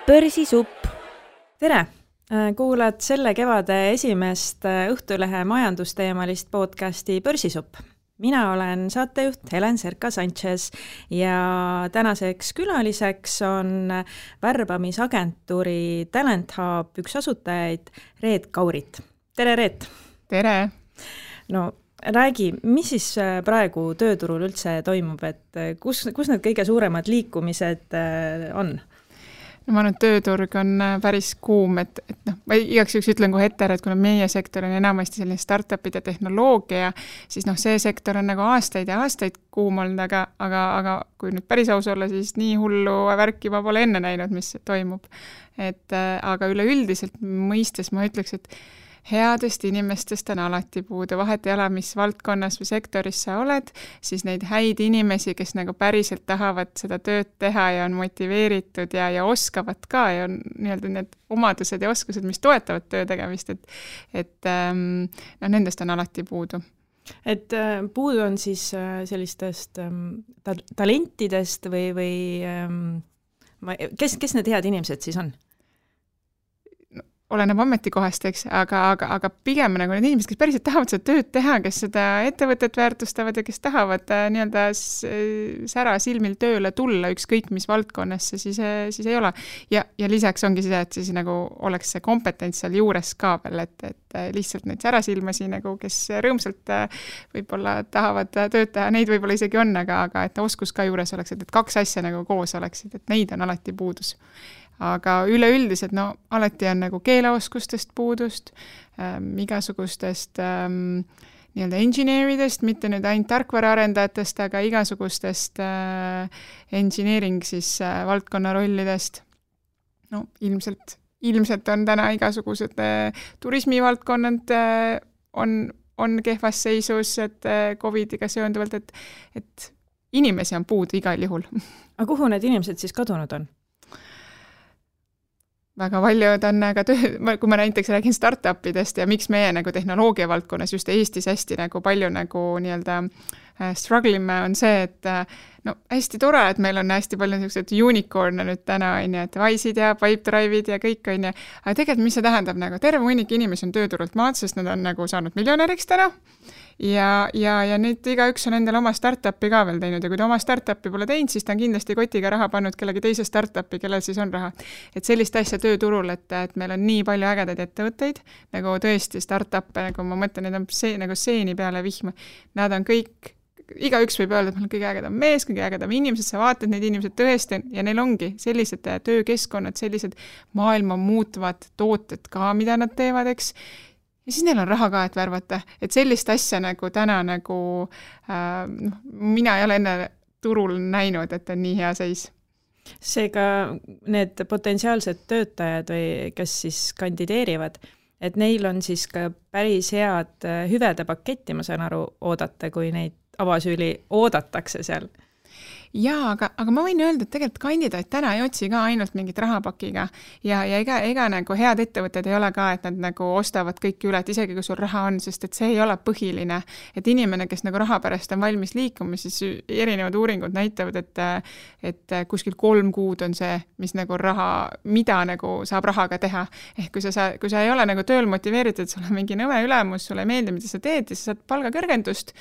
Börsisupp. Tere! Kuulad selle kevade esimest Õhtulehe majandusteemalist podcasti Börsisupp. Mina olen saatejuht Helen Serka-Sanchez ja tänaseks külaliseks on värbamisagentuuri Talent Hub üks asutajaid Reet Kaurit. Tere, Reet! Tere! No räägi, mis siis praegu tööturul üldse toimub, et kus need kõige suuremad liikumised on? No ma arvan, et tööturg on päris kuum, et ma igaks juhuks ütlen kohe ette, et kuna meie sektor on enamasti selline startupid ja tehnoloogia, siis see sektor on nagu aastaid ja aastaid kuum olnud, aga kui nüüd päris aus olla, siis nii hullu värki ma pole enne näinud, mis toimub. Aga üleüldiselt mõistes ma ütleks, et headest inimestest on alati puudu, vahet ei ole, mis valdkonnas või sektoris sa oled, siis neid häid inimesi, kes nagu päriselt tahavad seda tööd teha ja on motiveeritud ja oskavad ka ja on nii-öelda need omadused ja oskused, mis toetavad töö tegemist, et nendest on alati puudu. Et puudu on siis sellistest talentidest või kes need head inimesed siis on? Oleneb ametikohast, eks, aga pigem nagu need inimesed, kes päriselt tahavad seda tööd teha, kes seda ettevõtet väärtustavad ja kes tahavad nii-öelda sära silmil tööle tulla, ükskõik mis valdkonnasse, siis ei ole. Ja lisaks ongi see, et siis nagu oleks see kompetents seal juures ka veel, et lihtsalt neid särasilmasi, nagu, kes rõõmsalt võib-olla tahavad tööd teha, neid võib-olla isegi on, aga et oskus ka juures oleks, et kaks asja nagu koos oleksid, et neid on alati puudus. Aga üleüldiselt, alati on nagu keeleoskustest puudust, igasugustest nii-öelda engineeridest, mitte nüüd ainult tarkvaraarendajatest, aga igasugustest engineering siis valdkonna rollidest. Ilmselt on täna igasugused turismivaldkonnad on kehvas seisus, et COVIDiga seonduvalt, et inimesi on puudu igal juhul. Aga kuhu need inimesed siis kadunud on? Väga paljud on kui ma näiteks räägin startupidest ja miks meie nagu tehnoloogia valdkonnas just Eestis hästi nagu palju nagu nii-öelda strugglime on see, et hästi tore, et meil on hästi palju niisugused unicorn'e nüüd täna, et Wise'id ja Pipedrive'id ja kõik on ja, aga tegelikult mis see tähendab nagu terve hunnik inimesi on tööturult maad, sest nad on nagu saanud miljonäriks täna ja nüüd igaüks on endale oma startupi ka veel teinud ja kui ta oma startupi pole teinud, siis ta on kindlasti kotiga raha pannud kellegi teise startupi, kellel siis on raha. Et sellist asja tööturul, et meil on nii palju ägedaid ettevõtteid, nagu tõesti startup'e, nagu ma mõtlen, need on nagu seeni peale vihma. Nad on kõik, igaüks võib öelda, et meil on kõige ägedam mees, kõige ägedam inimesed, sa vaatad neid inimesed tõesti ja neil ongi sellised töökeskkonnad, sellised maailma muutvad tooted ka, mida nad teevad, eks. Ja siis neil on raha ka, et värvata. Et sellist asja nagu täna nagu mina ei ole enne turul näinud, et on nii hea seis. Seega need potentsiaalsed töötajad või kes siis kandideerivad, et neil on siis ka päris head hüvede paketti, ma saan aru, oodata, kui neid avasüüli oodatakse seal. Jaa, aga ma võin öelda, et tegelikult kandidaat täna ei otsi ka ainult mingit rahapakiga ja ega nagu head ettevõtted ei ole ka, et nad nagu ostavad kõik üle, et isegi kui sul raha on, sest et see ei ole põhiline, et inimene, kes nagu raha pärast on valmis liikuma, siis erinevad uuringud näitavad, et kuskil 3 kuud on see, mis nagu raha, mida nagu saab rahaga teha. Ehk kui sa ei ole nagu tööl motiveeritud, sul on mingi nõme ülemus, sulle ei meeldi, mida sa teed ja sa saad palgakõrgendust,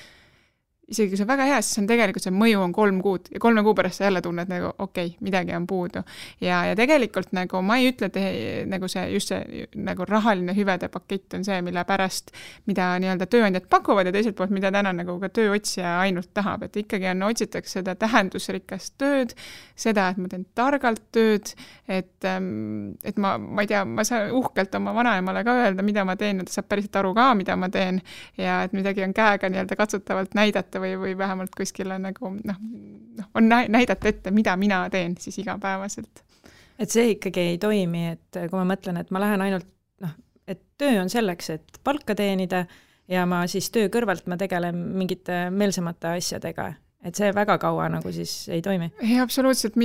isegi kui see on väga hea, siis on tegelikult see mõju on 3 kuud ja 3 kuu pärast sa jälle tunned nagu okei, midagi on puudu. Ja tegelikult nagu ma ei ütle, et nagu just see nagu rahaline hüvede pakett on see, mille pärast, mida nii-öelda tööandjad pakuvad ja teiselt poolt, mida täna nagu ka tööotsija ainult tahab, et ikkagi otsitakse seda tähendusrikast tööd, seda, et ma teen targalt tööd, et ma ei tea, ma saan uhkelt oma vanaemale ka öelda, mida ma teen, et ta saab päriselt aru ka, mida ma teen ja et midagi on käega nii-öelda katsutavalt näidata või vähemalt kuskil nagu, on näidata ette, mida mina teen siis igapäevaselt. Et see ikkagi ei toimi, et kui ma mõtlen, et ma lähen ainult, et töö on selleks, et palka teenida ja ma siis töö kõrvalt ma tegelen mingite meelsemate asjadega. Et see väga kaua nagu siis ei toimi? Ei, absoluutselt,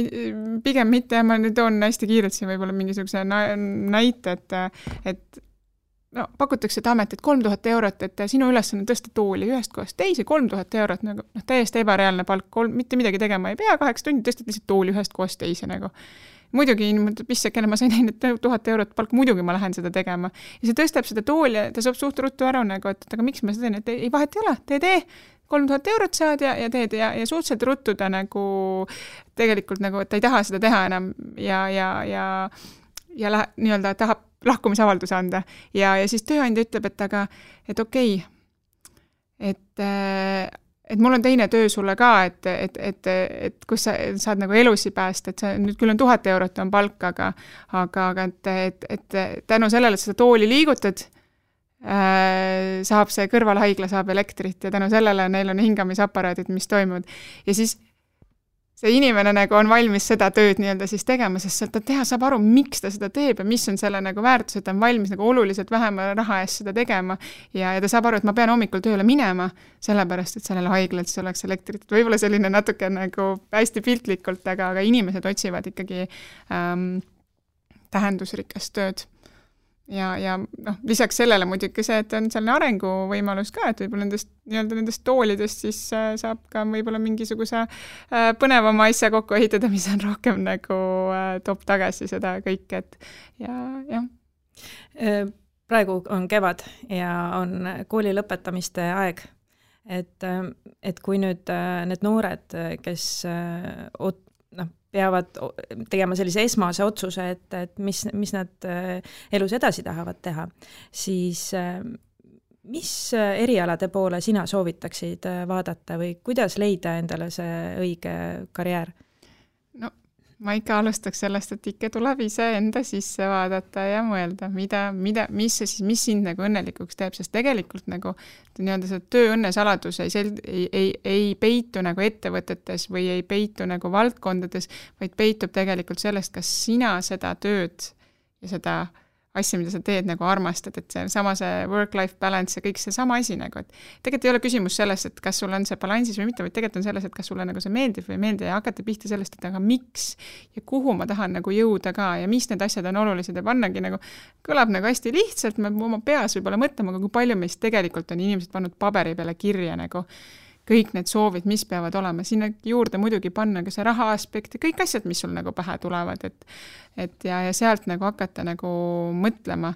pigem mitte ja ma nüüd toon hästi kiirelt siin võib-olla mingisuguse näite, et pakutakse ametit 3000 eurot, et sinu ülesanne tõsta tooli ühest kohast teise 3000 eurot, nagu täiesti ebareaalne palk, mitte midagi tegema ei pea, 8 tundi tõstad lihtsalt tooli ühest kohast teise nagu. muidugi pissakene, ma sain ainult 1000 eurot palk, muidugi ma lähen seda tegema. Ja see tõstab seda tooli ja ta saab suht ruttu ära nagu, et aga miks ma seda teen, et ei vahet ei ole, tee, 3000 eurot saad ja teed ja suhteliselt ruttu ta nagu tegelikult nagu, et ta ei taha seda teha enam ja nii-öelda tahab lahkumisavalduse anda. Ja siis tööandja ütleb, et okei, et mul on teine töö sulle ka, et kus sa saad nagu elusi päästa, et nüüd küll on 1000 eurot on palk, aga et tänu sellele, et seda tooli liigutad, saab see kõrvalhaigla, saab elektrit ja tänu sellele neil on hingamisaparaadid, mis toimuvad. Ja siis see inimene nagu on valmis seda tööd nii-öelda siis tegema, sest sealt ta saab aru, miks ta seda teeb ja mis on selle nagu väärtus, et ta on valmis nagu oluliselt vähema raha eest seda tegema ja ta saab aru, et ma pean hommikul tööle minema, sellepärast, et sellele haiglalt siis oleks elektrit. Võib-olla selline natuke nagu hästi piltlikult, aga inimesed otsivad ikkagi tähendusrikast tööd. Ja lisaks sellele muidugi see, et on selline arenguvõimalus ka, et võib-olla nendest toolidest siis saab ka võib-olla mingisuguse põnevama asja kokku ehitada, mis on rohkem nagu toob tagasi seda kõike, et ja. Praegu on kevad ja on kooli lõpetamiste aeg, et kui nüüd need noored, kes peavad tegema sellise esmase otsuse, et mis nad elus edasi tahavad teha, siis mis erialade poole sina soovitaksid vaadata või kuidas leida endale see õige karjäär? No, ma ikka alustaks sellest, et ikka tuleb ise enda sisse vaadata ja mõelda, mis sind nagu õnnelikuks teeb, sest tegelikult nagu nii-öelda see tööõnne saladus ei peitu nagu ettevõtetes või ei peitu nagu valdkondades, vaid peitub tegelikult sellest, kas sina seda tööd ja seda asja, mida sa teed, nagu armastad, et see work-life balance ja kõik see sama asi nagu, et tegelikult ei ole küsimus sellest, et kas sul on see balansis või mitte, vaid tegelikult on selles, et kas sulle nagu see meeldib või ei meeldi ja hakata pihta sellest, et aga miks ja kuhu ma tahan nagu jõuda ka ja mis need asjad on olulised ja pannagi nagu, kõlab nagu hästi lihtsalt, me oma peas võib-olla mõtlema, aga kui palju meist tegelikult on inimesed pannud paberi peale kirja nagu kõik need soovid, mis peavad olema, sinna juurde muidugi panna ka see raha aspekt ja kõik asjad, mis sul nagu pähe tulevad, et ja sealt nagu hakata nagu mõtlema,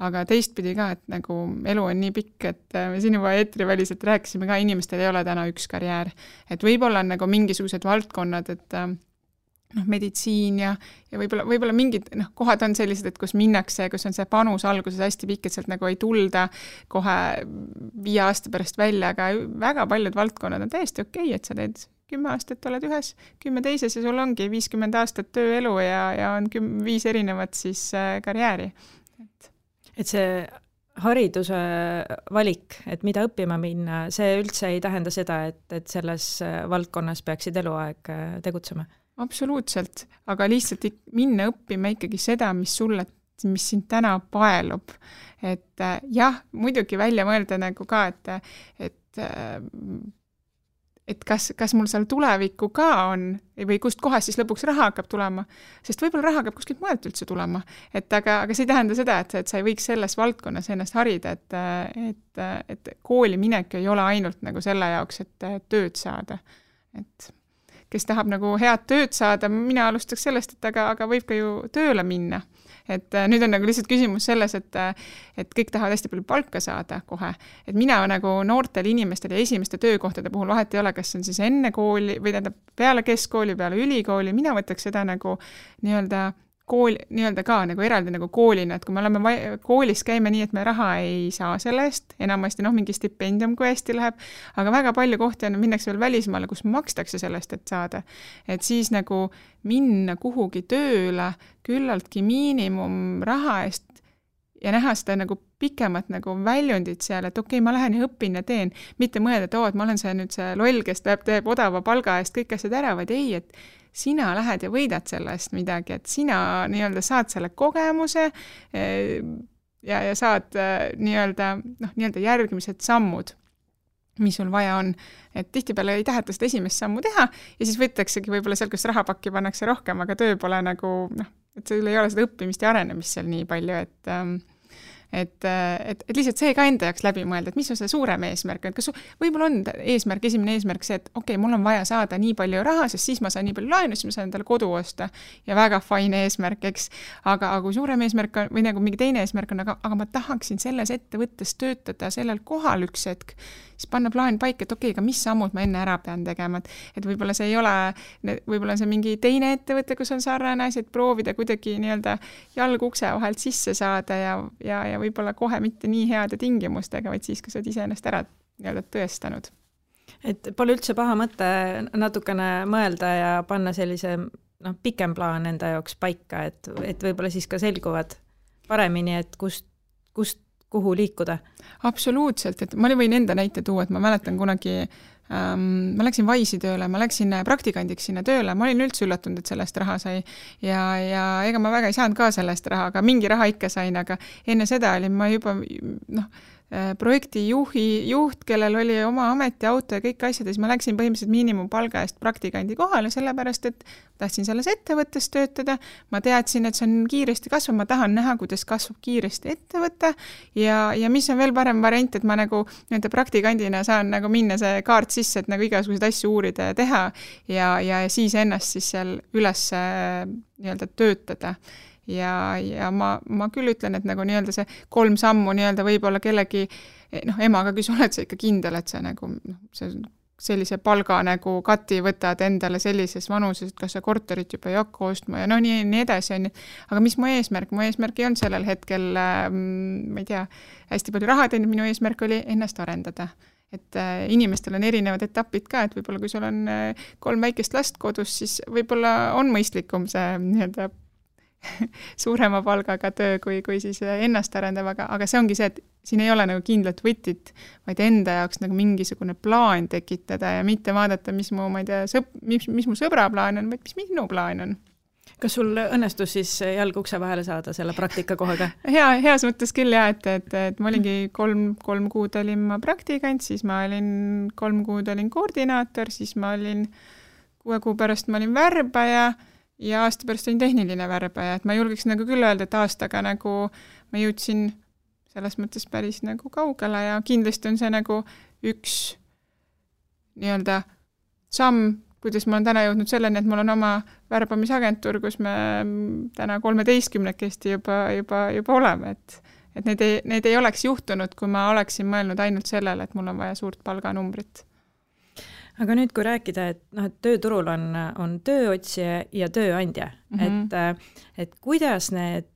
aga teistpidi ka, et nagu elu on nii pikk, et me siin juba eetriväliselt rääkisime ka, inimestel ei ole täna üks karjäär, et võib-olla on nagu mingisugused valdkonnad, et meditsiin ja võib-olla mingid kohad on sellised, et kus minnakse, kus on see panus alguses hästi pikk, et sealt nagu ei tulda kohe 5 aasta pärast välja, aga väga paljud valdkonnad on täiesti okei, et sa teed 10 aastat oled ühes, 10 teises ja sul ongi 50 aastat tööelu ja on 5 erinevat siis karjääri. Et see hariduse valik, et mida õppima minna, see üldse ei tähenda seda, et selles valdkonnas peaksid eluaeg tegutsema? Absoluutselt, aga lihtsalt minna õppima ikkagi seda, mis sind täna paelub. Et jah, muidugi välja mõelda nagu ka, et kas mul seal tulevikku ka on või kust kohast siis lõpuks raha hakkab tulema, sest võib-olla raha hakkab kuskilt mujalt üldse tulema. Aga see ei tähenda seda, et sa ei võiks selles valdkonnas ennast harida, et kooli minek ei ole ainult nagu selle jaoks, et tööd saada. Et kes tahab nagu head tööd saada, mina alustaks sellest, aga võib ka ju tööle minna. Et nüüd on nagu lihtsalt küsimus selles, et kõik tahavad hästi palju palka saada kohe. Et mina nagu noortel inimestel ja esimeste töökohtade puhul vahet ei ole, kas on siis enne kooli või peale keskkooli, peale ülikooli, mina võtaks seda nagu nii-öelda ka nagu eraldi nagu koolina, et kui me oleme koolis käime nii, et me raha ei saa selle eest, enamasti mingi stipendium, kui hästi läheb, aga väga palju kohti on, minnakse veel välismaale, kus makstakse sellest, et saada. Et siis nagu minna kuhugi tööle küllaltki miinimum raha eest ja näha seda nagu pikemat nagu väljundit seal, et okei, ma lähen ja õpin ja teen, mitte mõelda, et ma olen see loll, kes teeb odava palga eest kõik asjad ära, vaid ei, et sina lähed ja võidad sellest midagi, et sina nii-öelda saad selle kogemuse ja saad nii-öelda järgmised sammud, mis sul vaja on. Et tihtipeale ei taheta seda esimest sammu teha ja siis võtaksegi võib-olla seal, kus rahapakki pannakse rohkem, aga töö pole nagu, et sul ei ole seda õppimist ja arenemist seal nii palju, et lihtsalt see ka enda jaoks läbi mõelda, et mis on see suurem eesmärk, et kas võib-olla on eesmärk, esimene eesmärk see, et okei, mul on vaja saada nii palju raha, sest siis ma saan nii palju laenu, siis ma saan endale kodu osta ja väga fine eesmärk, eks, aga kui suurem eesmärk on, või nagu mingi teine eesmärk on, aga ma tahaksin selles ettevõttes töötada sellel kohal üks hetk, siis panna plaan paika, et okei, aga mis sammud ma enne ära pean tegema, et võib-olla see ei ole, võib-olla see mingi teine ettevõte, kus on sarnane asi, et proovida kuidagi nii-öelda jalg ukse vahelt sisse saada ja võib-olla kohe mitte nii heade tingimustega, vaid siis, kui sa oled iseennast ära nii-öelda tõestanud. Et pole üldse paha mõte natukene mõelda ja panna sellise pikem plaan enda jaoks paika, et võib-olla siis ka selguvad paremini, et kuhu liikuda. Absoluutselt, et ma võin enda näite tuua, et ma mäletan kunagi, ma läksin Wise'i tööle, ma läksin praktikandiks sinna tööle, ma olin üldse üllatunud, et sellest raha sai ja ega ma väga ei saanud ka sellest raha, aga mingi raha ikka sain, aga enne seda olin ma juba projekti juht, kellel oli oma ametiauto ja kõik asjad, ja siis ma läksin põhimõtteliselt miinimumpalga eest praktikandi kohale, sellepärast et tahtsin selles ettevõttes töötada, ma teadsin, et see on kiiresti kasvav, ma tahan näha, kuidas kasvab kiiresti ettevõte ja mis on veel parem variant, et ma nagu nende praktikandina saan nagu minna see kaart sisse, et nagu igasuguseid asju uurida ja teha ja siis ennast siis seal üles nii-öelda töötada. Ja ma küll ütlen, et nagu nii-öelda see 3 sammu nii-öelda võib-olla kellegi emaga küsi, oled sa ikka kindel, et sa nagu sellise palga nagu kati võtad endale sellises vanuses, et kas sa korterit juba ei hakka ostma ja nii edasi on. Aga mis mu eesmärk? Mu eesmärk ei olnud sellel hetkel, ma ei tea, hästi palju raha teinud, minu eesmärk oli ennast arendada. Et inimestel on erinevad etapid ka, et võib-olla kui sul on 3 väikest last kodus, siis võib-olla on mõistlikum see nii-öelda suurema palgaga töö, kui siis ennast arendab, aga see ongi see, et siin ei ole nagu kindlat võtit, vaid enda jaoks nagu mingisugune plaan tekitada ja mitte vaadata, mis mu, ma ei tea, mis mu sõbra plaan on, vaid mis minu plaan on. Kas sul õnnestus siis jalg ukse vahele saada selle praktikakohaga? Heas mõttes küll jah, et ma olingi 3 kuud olin ma praktikant, siis ma olin 3 kuud olin koordinaator, siis ma olin 6 kuu pärast ma olin värbaja ja aasta pärast olin tehniline värbaja, et ma julgeks nagu küll öelda, et aastaga nagu ma jõudsin selles mõttes päris nagu kaugele ja kindlasti on see nagu üks nii-öelda samm, kuidas ma olen täna jõudnud selleni, et mul on oma värbamisagentuur, kus me täna 13-kesti juba oleme, et need ei oleks juhtunud, kui ma oleksin mõelnud ainult sellele, et mul on vaja suurt palganumbrit. Aga nüüd, kui rääkida, et tööturul on tööotsija ja tööandja, et kuidas need,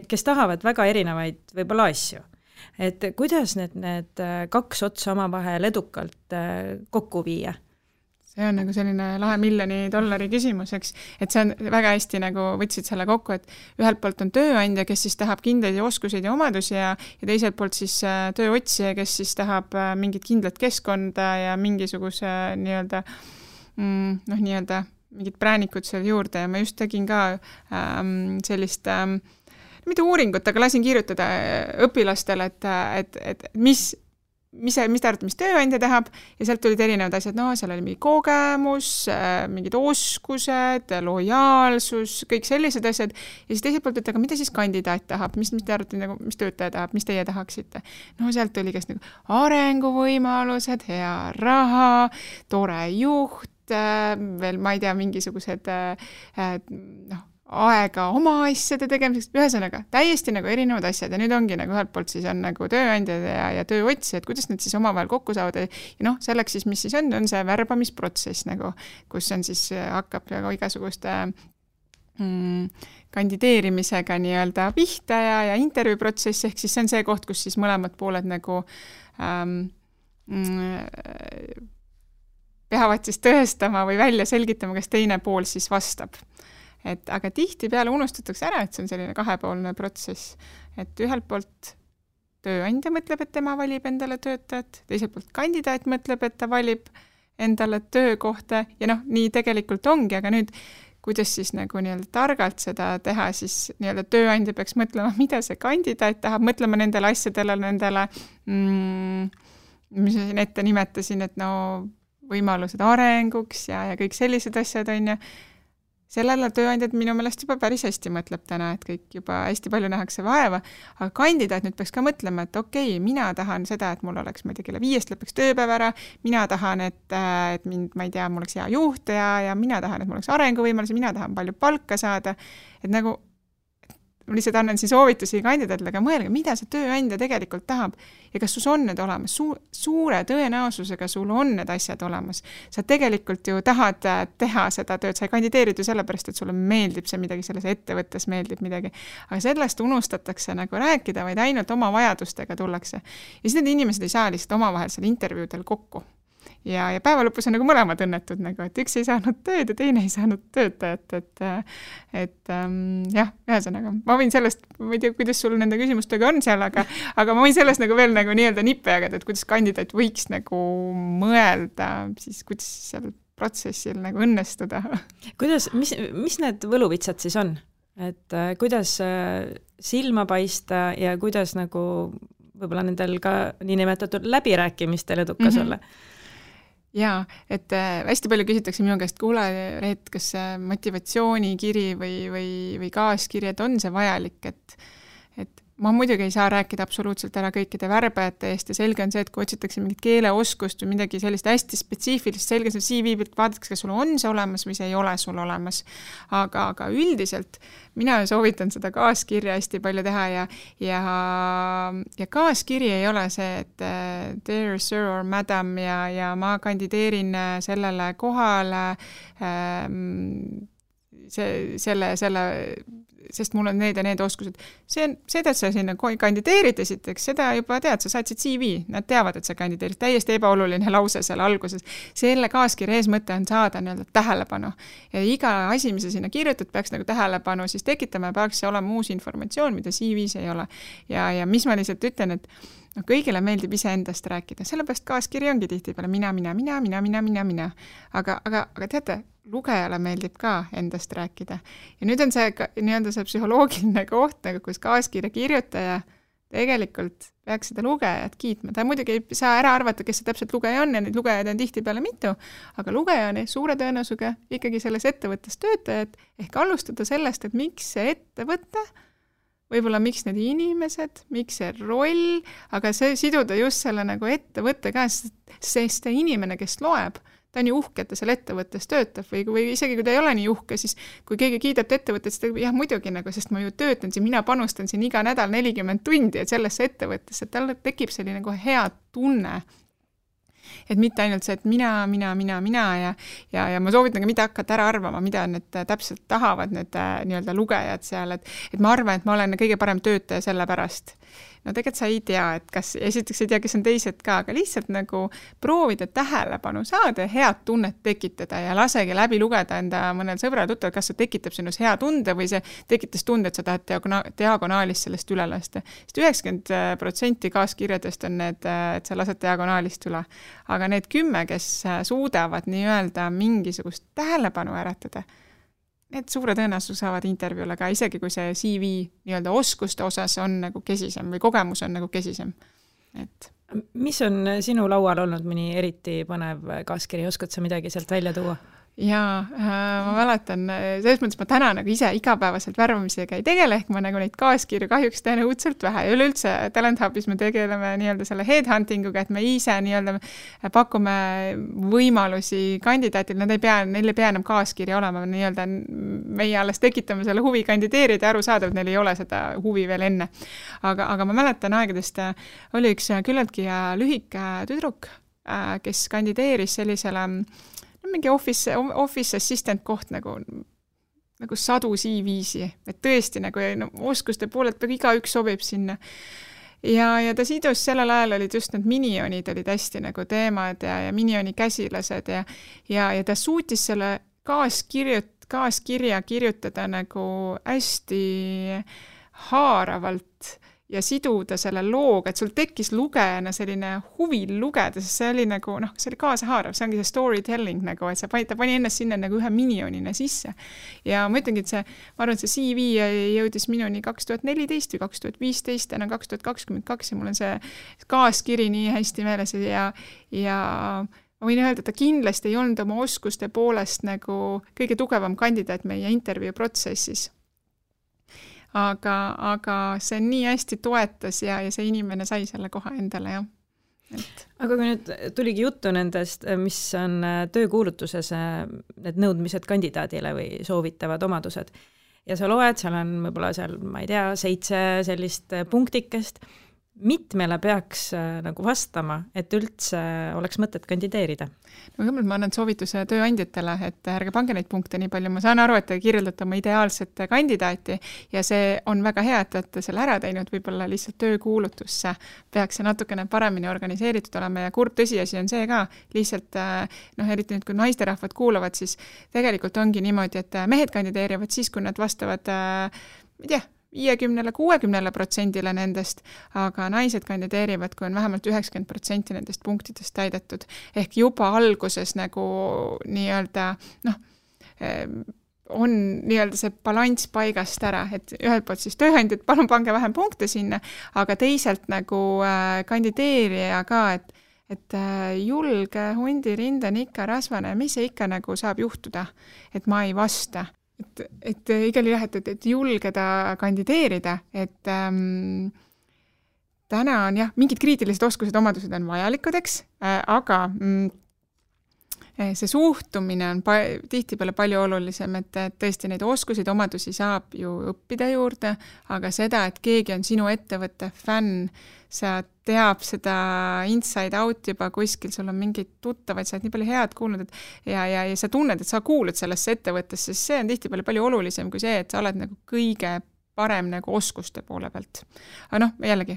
kes tahavad väga erinevaid võib-olla asju, et kuidas need 2 otsa omavahel edukalt kokku viia? See on nagu selline lahe $1 miljoni küsimus, eks, et see on väga hästi nagu võtsid selle kokku, et ühelt poolt on tööandja, kes siis tahab kindlaid oskuseid ja omadusi ja teiselt poolt siis tööotsija, kes siis tahab mingit kindlat keskkonda ja mingisuguse nii-öelda nii-öelda mingid präänikud seal juurde ja ma just tegin ka sellist mitte uuringut, aga lasin kirjutada õpilastele, et mis te arvate, mis tööandja tahab ja sealt tulid erinevad asjad, seal oli mingi kogemus, mingid oskused, lojaalsus, kõik sellised asjad ja siis teiselt poolt, et aga mida siis kandidaat tahab, mis te arvate, nagu, mis töötaja tahab, mis teie tahaksite? Sealt tuli kas nagu arenguvõimalused, hea raha, tore juht, veel ma ei tea, mingisugused aega oma asjade tegemiseks, ühesõnaga täiesti nagu erinevad asjad ja nüüd ongi nagu ühelt poolt siis on nagu tööandjad ja tööotsijad, kuidas need siis omavahel kokku saavad ja selleks siis, mis siis on see värbamisprotsess nagu, kus on siis hakkab igasuguste kandideerimisega nii-öelda pihta ja intervjuuprotsess, ehk siis see on see koht, kus siis mõlemad pooled nagu peavad siis tõestama või välja selgitama, kas teine pool siis vastab. Aga tihti peale unustatakse ära, et see on selline kahepoolne protsess, et ühelt poolt tööandja mõtleb, et tema valib endale töötajat, teiselt poolt kandidaat mõtleb, et ta valib endale töökohta ja nii tegelikult ongi, aga nüüd kuidas siis nagu nii-öelda targalt seda teha, siis nii-öelda tööandja peaks mõtlema, mida see kandidaat tahab, mõtlema nendele asjadele, nendele mis ma siin ette nimetasin, et võimalused arenguks ja kõik sellised asjad on ja sellele tööandjad minu meelest juba päris hästi mõtleb täna, et kõik juba hästi palju nähakse vaeva, aga kandidaat nüüd peaks ka mõtlema, et okei, mina tahan seda, et mul oleks, ma ei tea, kella 5 lõpeks tööpäev ära, mina tahan, et mind, ma ei tea, mul oleks hea juht ja mina tahan, et mul oleks arenguvõimalus, mina tahan palju palka saada, et nagu ma lihtsalt annan siin soovitusi kandidaatile, aga mõelge, mida see tööandja tegelikult tahab ja kas sul on need olemas. Suure tõenäosusega sul on need asjad olemas. Sa tegelikult ju tahad teha seda tööd, sa ei kandideerid ju sellepärast, et sulle meeldib see midagi, selles ettevõttes meeldib midagi, aga sellest unustatakse nagu rääkida, vaid ainult oma vajadustega tullakse. Ja siis need inimesed ei saa lihtsalt omavahel seal intervjuudel kokku. Ja päeva lõpus on nagu mõlemad õnnetud, nagu, et üks ei saanud tööd ja teine ei saanud töötajat, jah, ühesõnaga, ma võin sellest, ma ei tea, kuidas sul nende küsimustega on seal, aga ma võin sellest nagu veel nagu nii-öelda nippe jagada, et kuidas kandidaat võiks nagu mõelda, siis kuidas seal protsessil nagu õnnestuda. Kuidas, mis need võluvitsad siis on? Et kuidas silma paista ja kuidas nagu võib-olla nendel ka niinimetatud läbirääkimistel edukas olla? Jaa, et hästi palju küsitakse minu käest, kuule, et kas motivatsioonikiri või kaaskiri, et on see vajalik, et ma muidugi ei saa rääkida absoluutselt ära kõikide värbajate eest ja selge on see, et kui otsitakse mingit keeleoskust või midagi sellist hästi spetsiifilist, selge see CV pilt vaadatakse, kas sul on see olemas või see ei ole sul olemas. Aga üldiselt mina soovitan seda kaaskirja hästi palju teha ja kaaskiri ei ole see, et dear sir or madam ja ma kandideerin sellele kohale sest mul on need ja need oskused. Seda, et sa sinna kandideerid esiteks, seda juba tead, sa saatsid CV, nad teavad, et sa kandideerid, täiesti ebaoluline lause seal alguses. Selle kaaskirja eesmõte on saada nii-öelda tähelepanu. Ja iga asi, mis sa sinna kirjutad, peaks nagu tähelepanu siis tekitama ja peaks see olema uus informatsioon, mida CV-s ei ole. Ja mis ma lihtsalt ütlen, et kõigile meeldib iseendast rääkida, sellepärast kaaskiri ongi tihti peale mina. Aga teate, lugejale meeldib ka endast rääkida. Ja nüüd on see nii-öelda see psühholoogiline koht, nagu kus kaaskirja kirjutaja tegelikult peaks seda lugejat kiitma. Ta muidugi ei saa ära arvata, kes see täpselt lugeja on ja neid lugejaid on tihti peale mitu, aga lugeja on suure tõenäosusega ikkagi selles ettevõttes töötajad ehk alustada sellest, et miks see ettevõte võib-olla miks need inimesed, miks see roll, aga see siduda just selle nagu ettevõtte ka, sest see inimene, kes loeb, ta on ju uhke, et ta seal ettevõttes töötab või isegi kui ta ei ole nii uhke, siis kui keegi kiidab ettevõtet, siis ta jah, muidugi nagu, sest ma ju töötan siin, mina panustan siin iga nädal 40 tundi sellesse ettevõttesse, et tal tekib selline nagu hea tunne. Et mitte ainult see, et mina ja ma soovitan ka mitte hakata ära arvama, mida need täpselt tahavad need nii-öelda lugejad seal, et ma arvan, et ma olen kõige parem töötaja selle pärast. No tegelikult sa ei tea, et kas, esiteks ei tea, kes on teised ka, aga lihtsalt nagu proovida tähelepanu saada ja head tunnet tekitada ja lasegi läbi lugeda enda mõnel sõbral tuttav, kas see tekitab sinus hea tunde või see tekitas tunde, et sa tahad diagonaalist sellest üle lasta. Sest 90% kaaskirjadest on need, et sa lased diagonaalist üle. Aga need 10, kes suudavad nii-öelda mingisugust tähelepanu äratada, need suure tõenäosus saavad intervjuule ka, isegi kui see CV nii-öelda oskuste osas on nagu kesisem või kogemus on nagu kesisem. Et mis on sinu laual olnud mõni eriti põnev kaaskiri, oskad sa midagi sealt välja tuua? Jaa, ma mäletan, selles mõttes ma täna nagu ise igapäevaselt värbamisega ei tegele, ehk ma nagu neid kaaskirju kahjuks teen õudselt vähe ja üleüldse Talent Hubis me tegeleme nii-öelda selle headhuntinguga, et me ise nii-öelda pakume võimalusi kandidaatile, neil ei pea enam kaaskiri olema, nii-öelda meie alles tekitame selle huvi kandideerida ja aru saada, et neil ei ole seda huvi veel enne. Aga ma mäletan aegadest, oli üks küllaltki lühike tüdruk, kes kandideeris sellisele mingi office assistant koht nagu sadu CV-si, et tõesti nagu oskuste poolelt igaüks sobib sinna. Ja ta sidus sellel ajal olid just need minionid olid hästi nagu teemad ja minioni käsilased ja ta suutis selle kaaskirja kirjutada nagu hästi haaravalt ja siduda selle looga, et sul tekkis lugejana selline huvi lugeda, sest see oli nagu, see oli kaasahaarav, see ongi see storytelling nagu, et ta pani ennast sinna nagu ühe minionina sisse. Ja ma ütlengi, et ma arvan, et see CV jõudis minuni 2014 või 2015, enam 2022 ja mul on see kaaskiri nii hästi meeles ja ma võin öelda, et ta kindlasti ei olnud oma oskuste poolest nagu kõige tugevam kandidaat meie intervjuu protsessis. Aga see nii hästi toetas ja see inimene sai selle koha endale, jah. Aga kui nüüd tuligi juttu nendest, mis on töökuulutuses need nõudmised kandidaadile või soovitavad omadused ja sa loed, seal on võib-olla seal, ma ei tea, 7 sellist punktikest, mitmele peaks nagu vastama, et üldse oleks mõtet kandideerida? No kõigepealt ma annan soovituse tööandjatele, et ärge pange neid punkte nii palju. Ma saan aru, et te kirjeldate oma ideaalset kandidaati ja see on väga hea, et olete selle ära teinud, võib-olla lihtsalt töökuulutusse peaks see natukene paremini organiseeritud olema ja kurb tõsiasi on see ka, lihtsalt eriti nüüd, kui naisterahvad kuulavad, siis tegelikult ongi niimoodi, et mehed kandideerivad siis, kui nad vastavad, ma ei tea, 50–60% nendest, aga naised kandideerivad, kui on vähemalt 90% nendest punktidest täidetud. Ehk juba alguses nagu nii-öelda, on nii-öelda see balanss paigast ära, et ühelt poolt siis tööandjad, palun pange vähem punkte sinna, aga teiselt nagu kandideerija ka, et julge hundirinde on ikka rasvane, mis see ikka nagu saab juhtuda, et ma ei vasta. Et igal jah, et julgeda kandideerida, et täna on jah, mingid kriitilised oskused, omadused on vajalikud, eks, aga see suhtumine on tihtipeale palju olulisem, et tõesti neid oskuseid, omadusi saab ju õppida juurde, aga seda, et keegi on sinu ettevõtte fänn, sa teab seda inside out juba kuskil, sul on mingeid tuttavaid, sa oled nii palju head kuulnud, et ja sa tunned, et sa kuulud sellesse ettevõttesse, sest see on tihtipeale palju olulisem kui see, et sa oled nagu kõige parem nagu oskuste poole pealt. Aga jällegi,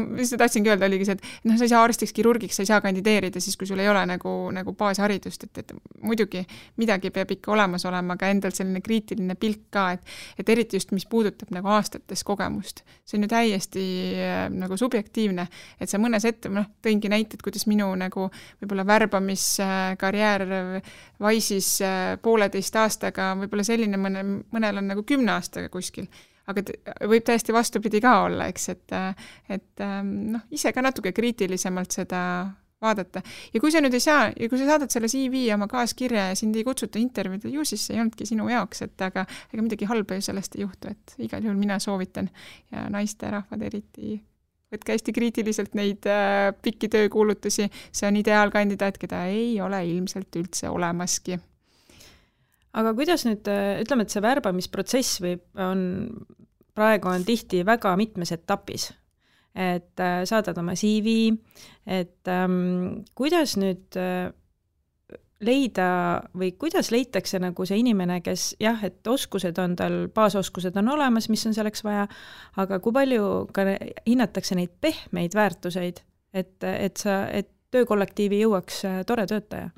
mis tahtsingi öelda, oligi see, et sa ei saa arstiks, kirurgiks, sa ei saa kandideerida siis, kui sul ei ole nagu baasharidust, et muidugi midagi peab ikka olemas olema, aga endal selline kriitiline pilk ka, et eriti just, mis puudutab nagu aastates kogemust. See on ju täiesti nagu subjektiivne, et sa mõnes tõingi näited, kuidas minu nagu võib-olla värbamiskarjäär Wise'is 1,5 aastaga, võib-olla selline mõnel on nagu 10 aastaga kuskil. Aga võib täiesti vastupidi ka olla, eks, et ise ka natuke kriitilisemalt seda vaadata. Ja kui sa nüüd ei saa, ja kui sa saadad selle CV oma kaaskirja ja sind ei kutsuta intervjuud, ju siis see ei olnudki sinu jaoks, et aga midagi halba ju sellest ei juhtu, et igal juhul mina soovitan ja naisterahvad eriti võtke hästi kriitiliselt neid pikki töökuulutusi, see on ideaalkandidaat, keda ei ole ilmselt üldse olemaski. Aga kuidas nüüd, ütleme, et see värbamisprotsess praegu on tihti väga mitmes etapis, et saadad oma CV, et kuidas nüüd leida või kuidas leitakse nagu see inimene, kes jah, et oskused on tal, baasoskused on olemas, mis on selleks vaja, aga kui palju ka hinnatakse neid pehmeid väärtuseid, et töökollektiivi jõuaks tore töötaja?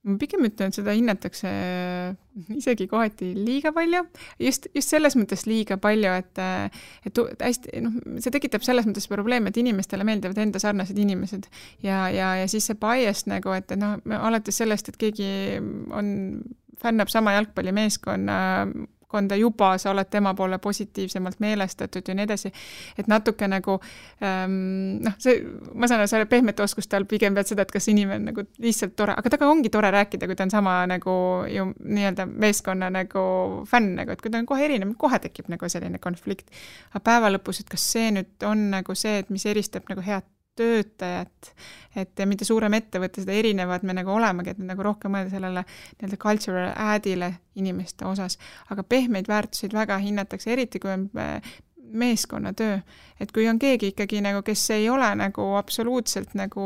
Ma pigem ütlen, et seda hinnatakse isegi kohati liiga palju, just selles mõttes liiga palju, et hästi, see tekitab selles mõttes probleem, et inimestele meeldivad enda sarnased inimesed ja siis see bias nagu, et alates sellest, et keegi fännab sama jalgpallimeeskonda juba, sa oled tema poole positiivsemalt meelestatud ja nii edasi, et natuke nagu ma saan selle pehmete oskuste all pigem pead seda, et kas inimene nagu lihtsalt tore, aga taga ongi tore rääkida, kui ta on sama nagu ju nii-öelda meeskonna nagu fänn, nagu, et kui ta on kohe erinev, kohe tekib nagu selline konflikt. Aga päeva lõpus, et kas see nüüd on nagu see, et mis eristab nagu head töötajat, et mida suurem ettevõte, seda erinevad me nagu olemegi, et nagu rohkem mõelda sellele nii-öelda cultural addile inimeste osas, aga pehmeid väärtuseid väga hinnatakse, eriti kui on meeskonnatöö, et kui on keegi ikkagi nagu, kes ei ole nagu absoluutselt nagu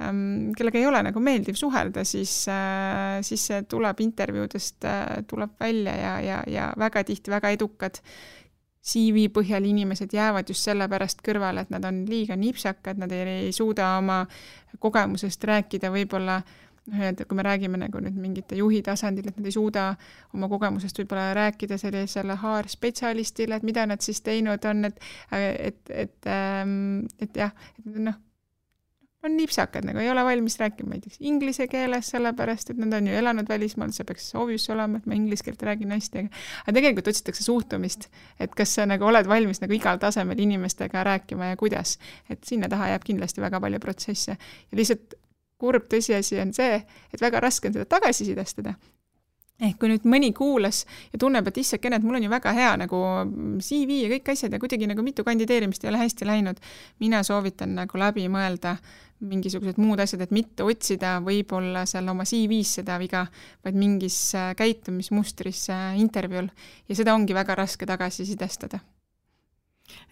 kellega ei ole nagu meeldiv suhelda, siis see tuleb intervjuudest, tuleb välja ja väga tihti väga edukad CV põhjal inimesed jäävad just sellepärast kõrvale, et nad on liiga nipsakad, nad ei suuda oma kogemusest rääkida võib-olla, kui me räägime nagu nüüd mingite juhi tasandil, et nad ei suuda oma kogemusest võib-olla rääkida sellisele HR-spetsialistile, et mida nad siis teinud on, et jah, on nipsakad, nagu ei ole valmis rääkima näiteks inglise keeles, sellepärast, et nad on ju elanud välismaal, see peaks obvious olema, et ma inglise keelt räägin hästi, aga tegelikult otsitakse suhtumist, et kas sa nagu oled valmis nagu igal tasemel inimestega rääkima ja kuidas, et sinna taha jääb kindlasti väga palju protsesse ja lihtsalt kurb tõsiasi on see, et väga raske on seda tagasisidestada. Ehk kui nüüd mõni kuulas ja tunneb, et issakene, et mul on ju väga hea nagu CV ja kõik asjad ja kuidagi nagu mitu kandideerimist ei ole hästi läinud, mina soovitan nagu läbi mõelda mingisugused muud asjad, et mitte otsida võib-olla seal oma CV-s seda viga, vaid mingis käitumismustris intervjuul ja seda ongi väga raske tagasisidestada.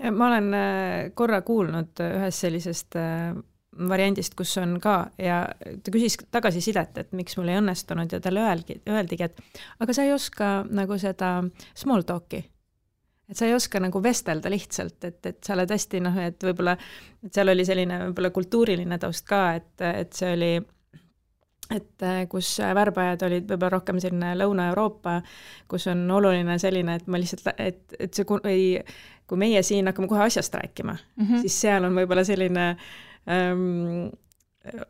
Ma olen korra kuulnud ühest sellisest variandist, kus on ka ja ta küsis tagasisidet, et miks mul ei õnnestunud ja talle öeldigi, et aga sa ei oska nagu seda small talk'i, et sa ei oska nagu vestelda lihtsalt, et sa oled hästi et võib-olla, et seal oli selline võib-olla kultuuriline taust ka, et see oli, et kus värbajad olid võib-olla rohkem selline Lõuna-Euroopa, kus on oluline selline, et ma lihtsalt, et see kui meie siin hakkame kohe asjast rääkima, siis seal on võib-olla selline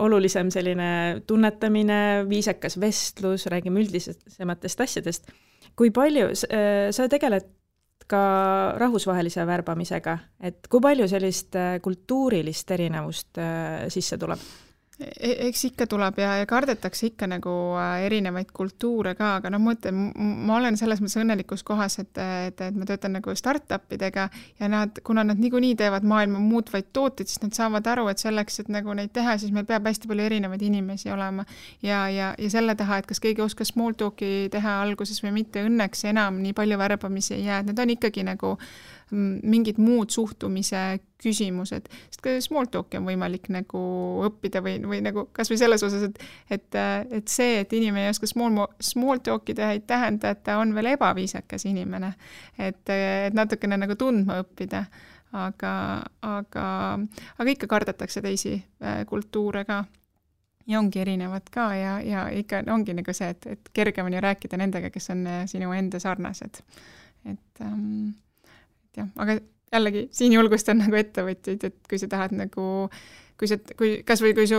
olulisem selline tunnetamine, viisakas vestlus, räägime üldisematest asjadest. Kui palju sa tegeled ka rahvusvahelise värbamisega, et kui palju sellist kultuurilist erinevust sisse tuleb? Eks ikka tuleb ja kardetakse ikka nagu erinevaid kultuure ka, aga ma olen selles mõttes õnnelikus kohas, et ma töötan nagu startupidega ja kuna nad niikuinii teevad maailma muutvaid tooteid, siis nad saavad aru, et selleks, et nagu neid teha, siis meil peab hästi palju erinevaid inimesi olema ja selle taha, et kas keegi oskas small talk'i teha alguses või mitte, õnneks enam nii palju värbamisi ei jää, need on ikkagi nagu mingid muud suhtumise küsimused, sest ka small talk'i on võimalik nagu õppida või nagu kas või selles osas, et see, et inimene ei oska small talk'i teha, ei tähenda, et ta on veel ebaviisakas inimene, et natukene nagu tundma õppida, aga ikka kardetakse teisi kultuure ka ja ongi erinevad ka ja ikka ongi nagu see, et kergem on ju rääkida nendega, kes on sinu enda sarnased, et jah, aga jällegi siin julgustan nagu ettevõtjaid, et kui sa tahad nagu, kui su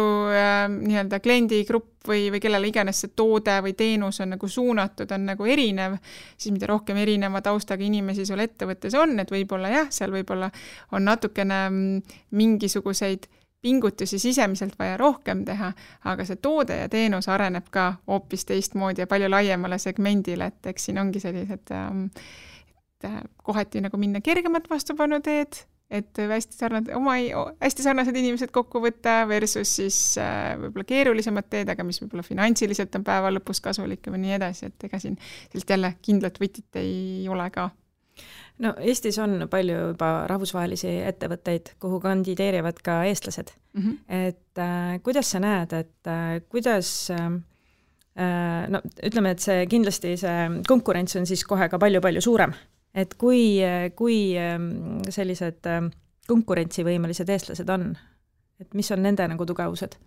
nii-öelda kliendigrupp või kellele iganes see toode või teenus on nagu suunatud, on nagu erinev, siis mida rohkem erineva taustaga inimesi sul ettevõttes on, et võib-olla jah, seal võib-olla on natukene mingisuguseid pingutusi sisemiselt vaja rohkem teha, aga see toode ja teenus areneb ka hoopis teistmoodi ja palju laiemale segmendile, et eks siin ongi sellised kohati nagu minna kergemat vastupanu teed, et hästi sarnased inimesed kokku võtta versus siis võib-olla keerulisemad teed, aga mis võib-olla finantsiliselt on päeva lõpus kasulik või nii edasi, et ega siin sellist jälle kindlat võtit ei ole ka. No Eestis on palju juba rahvusvahelisi ettevõtteid, kuhu kandideerivad ka eestlased. Et kuidas sa näed, et kuidas no ütleme, et see kindlasti see konkurents on siis kohe ka palju-palju suurem. Et kui sellised konkurentsivõimelised eestlased on, et mis on nende nagu tugevused?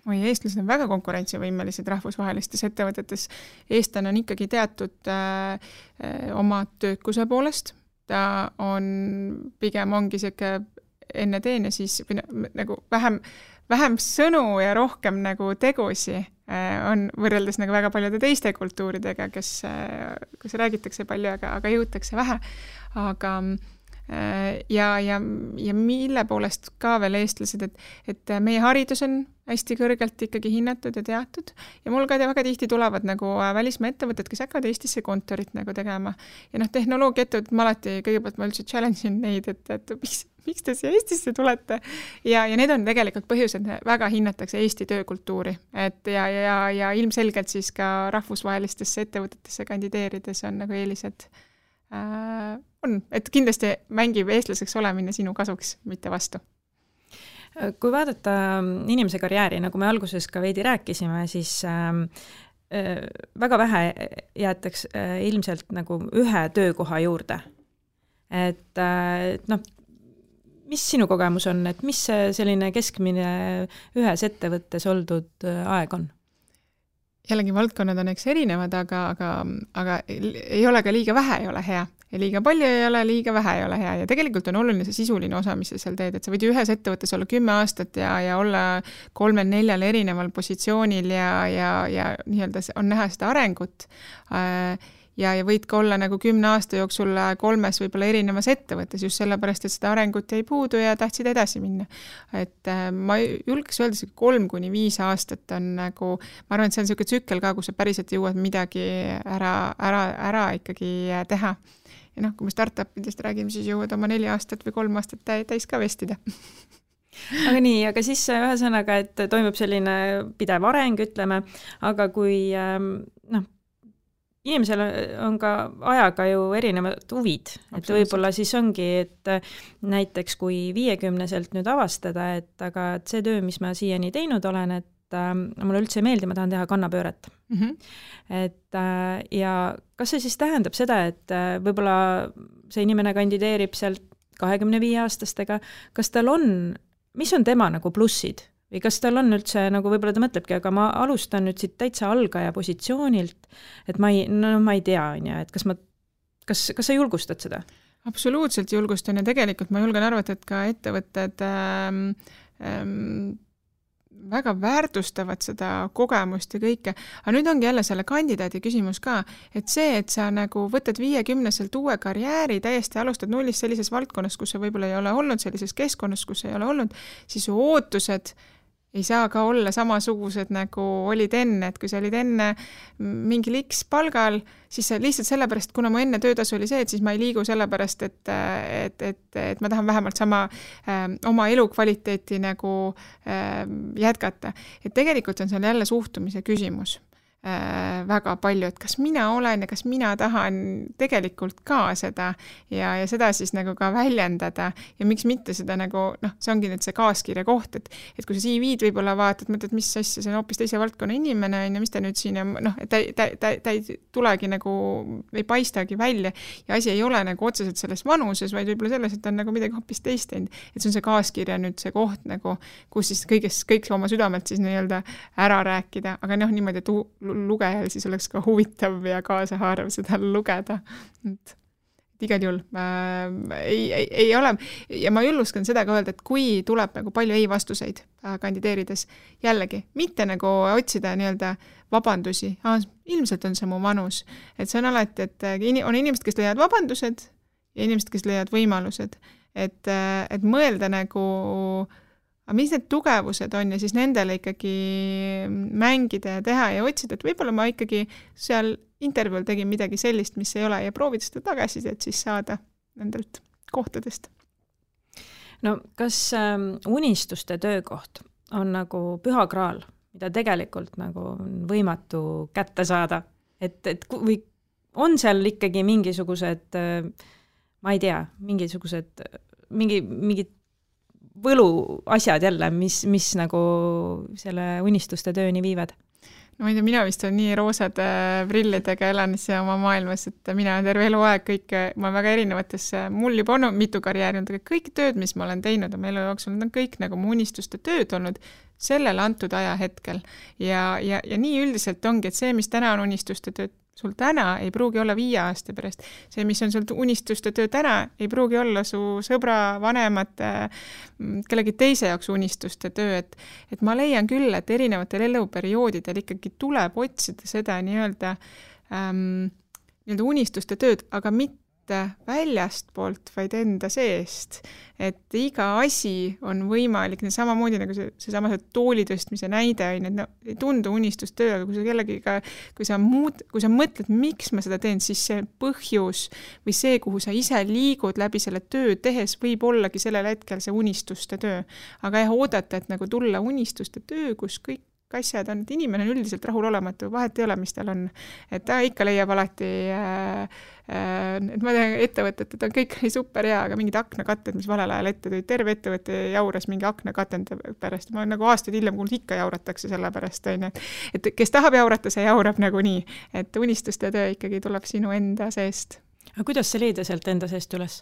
Eestlased on väga konkurentsivõimelised rahvusvahelistes ettevõtetes. Eestlane on ikkagi teatud oma töökuse poolest. Ta on pigem ongi selline enne teen ja siis nagu vähem sõnu ja rohkem nagu tegusi on võrreldes nagu väga paljude teiste kultuuridega, kus räägitakse palju, aga jõutakse vähe. Aga ja mille poolest ka veel eestlased, et meie haridus on hästi kõrgelt ikkagi hinnatud ja teatud ja mul ka väga tihti tulevad nagu välismaa ettevõtted, kes hakkavad Eestisse kontorit nagu tegema ja tehnoloogia ettevõtted ma alati kõigepealt ma üldse challenge'in neid, et miks te siia Eestisse tulete ja need on tegelikult põhjused, väga hinnatakse Eesti töökultuuri, et ja ilmselgelt siis ka rahvusvahelistesse ettevõtetesse kandideerides on nagu eelised on, et kindlasti mängib eestlaseks olemine sinu kasuks, mitte vastu. Kui vaadata inimese karjääri, nagu me alguses ka veidi rääkisime, siis väga vähe jäetaks ilmselt nagu ühe töökoha juurde. Et mis sinu kogemus on, et mis selline keskmine ühes ettevõttes oldud aeg on? Jällegi valdkonnad on eks erinevad, aga ei ole ka liiga vähe, ei ole hea. Ja liiga palju ei ole, liiga vähe ei ole hea. Ja tegelikult on oluline see sisuline osa, mis sa seal teed. Et sa võid ühes ettevõttes olla 10 aastat ja olla 3-4 erineval positsioonil ja nii-öelda on näha seda arengut. ja võid ka olla nagu 10 aasta jooksul 3 võib-olla erinevas ettevõttes just sellepärast, et seda arengut jäi puudu ja tahtsid edasi minna. Et ma julgeks öelda, 3-5 aastat on nagu, ma arvan, et see on selline tsükkel ka, kus sa päriselt jõuad midagi ära ikkagi teha. Ja noh, kui me startupidest räägime, siis jõuad oma 4 aastat või 3 aastat täis ka vestida. Aga nii, aga siis ühesõnaga, et toimub selline pidev areng, ütleme, aga kui inimesel on ka ajaga ju erinevad huvid, et võib-olla siis ongi, et näiteks kui 50-selt nüüd avastada, et aga see töö, mis ma siiani teinud olen, et mulle üldse ei meeldi, ma tahan teha kannapööret. Et ja kas see siis tähendab seda, et võib-olla see inimene kandideerib sealt 25-aastastega, kas tal on, mis on tema nagu plussid? Või kas tal on üldse, nagu võib-olla ta mõtlebki, aga ma alustan nüüd siit täitsa algaja positsioonilt, et ma ei tea, et kas sa julgustad seda? Absoluutselt julgustan ja tegelikult ma julgen arvata, et ka ettevõtted väga väärtustavad seda kogemust ja kõike. Aga nüüd ongi jälle selle kandidaadi küsimus ka, et see, et sa nagu võtad 50-selt uue karjääri, täiesti alustad nullist sellises valdkonnas, kus sa võib-olla ei ole olnud, sellises keskkonnas, kus ei ole olnud, siis su ootused ei saa ka olla samasugused, nagu olid enne, et kui sa olid enne mingil X palgal, siis lihtsalt sellepärast, kuna mu enne töötasu oli see, et siis ma ei liigu sellepärast, et ma tahan vähemalt sama oma elukvaliteeti nagu jätkata. Et tegelikult on seal jälle suhtumise küsimus väga palju, et kas mina olen ja kas mina tahan tegelikult ka seda ja seda siis nagu ka väljendada ja miks mitte seda nagu, see ongi nüüd see kaaskirja koht, et kui sa CV-d võib-olla vaatad, mõtled, mis asja, see on hoopis teise valdkonna inimene, ja mis ta nüüd siin, ta ei tulegi nagu, ei paistagi välja ja asi ei ole nagu otseselt selles vanuses, vaid võib-olla selles, et on nagu midagi hoopis teist teinud. Et see on see kaaskirja nüüd see koht nagu, kus siis kõik oma südamelt siis nii-öelda ära rääkida, aga niimoodi, et lugejal siis oleks ka huvitav ja kaasahaarav seda lugeda. Et igal juhul ei ole, ja ma julgustan seda ka öelda, et kui tuleb nagu palju ei-vastuseid kandideerides, jällegi, mitte nagu otsida nii-öelda vabandusi, ilmselt on see mu vanus, et see on alati, et on inimesed, kes leiavad vabandused ja inimesed, kes leiavad võimalused, et mõelda nagu aga mis need tugevused on ja siis nendele ikkagi mängida ja teha ja otsida, et võib-olla ma ikkagi seal intervjuul tegin midagi sellist, mis ei ole ja proovida seda tagasisidet siis saada nendelt kohtadest. No kas unistuste töökoht on nagu püha kraal, mida tegelikult nagu võimatu kätte saada? Või on seal ikkagi mingisugused, ma ei tea, mingid võlu asjad jälle, mis nagu selle unistuste tööni viivad? No ma ei tea, mina vist on nii roosad prillidega elan oma maailmas, et mina terve eluaeg ma väga erinevates, mul juba on mitu karjääri, kõik tööd, mis ma olen teinud oma elu jooksul, need on kõik nagu mu unistuste tööd olnud sellel antud ajahetkel. Ja nii üldiselt ongi, et see, mis täna on unistuste tööd, sul täna ei pruugi olla 5 aasta pärast. See, mis on sul unistuste töö täna, ei pruugi olla su sõbra, vanemate, kellegi teise jaoks unistuste töö. Et ma leian küll, et erinevatel eluperioodidel ikkagi tuleb otsida seda nii-öelda unistuste tööd, aga mitte väljast poolt, vaid enda seest. Et iga asi on võimalik, samamoodi nagu seesama tooli tõstmise näide on, et ei tundu unistustöö, aga kui sa kellegiga, kui sa mõtled, miks ma seda teen, siis see põhjus või see, kuhu sa ise liigud läbi selle töö tehes, võib ollagi sellel hetkel see unistuste töö. Aga oodata, et nagu tulla unistuste töö, kus kõik asjad on, et inimene on üldiselt rahulolematu, vahet ei ole, mis tal on. Et ta ikka leiab alati, et ma tean ettevõtet, et on kõik super hea, aga mingid aknakatted, mis valel ajal ette tõid, terve ettevõtte jauras mingi aknakatende pärast. Ma nagu aastaid hiljem kuulnud, ikka jauratakse selle pärast. Et kes tahab jaurata, see jaurab nagu nii. Et unistuste töö ikkagi tuleb sinu enda seest. Aga kuidas see leida sealt enda seest üles?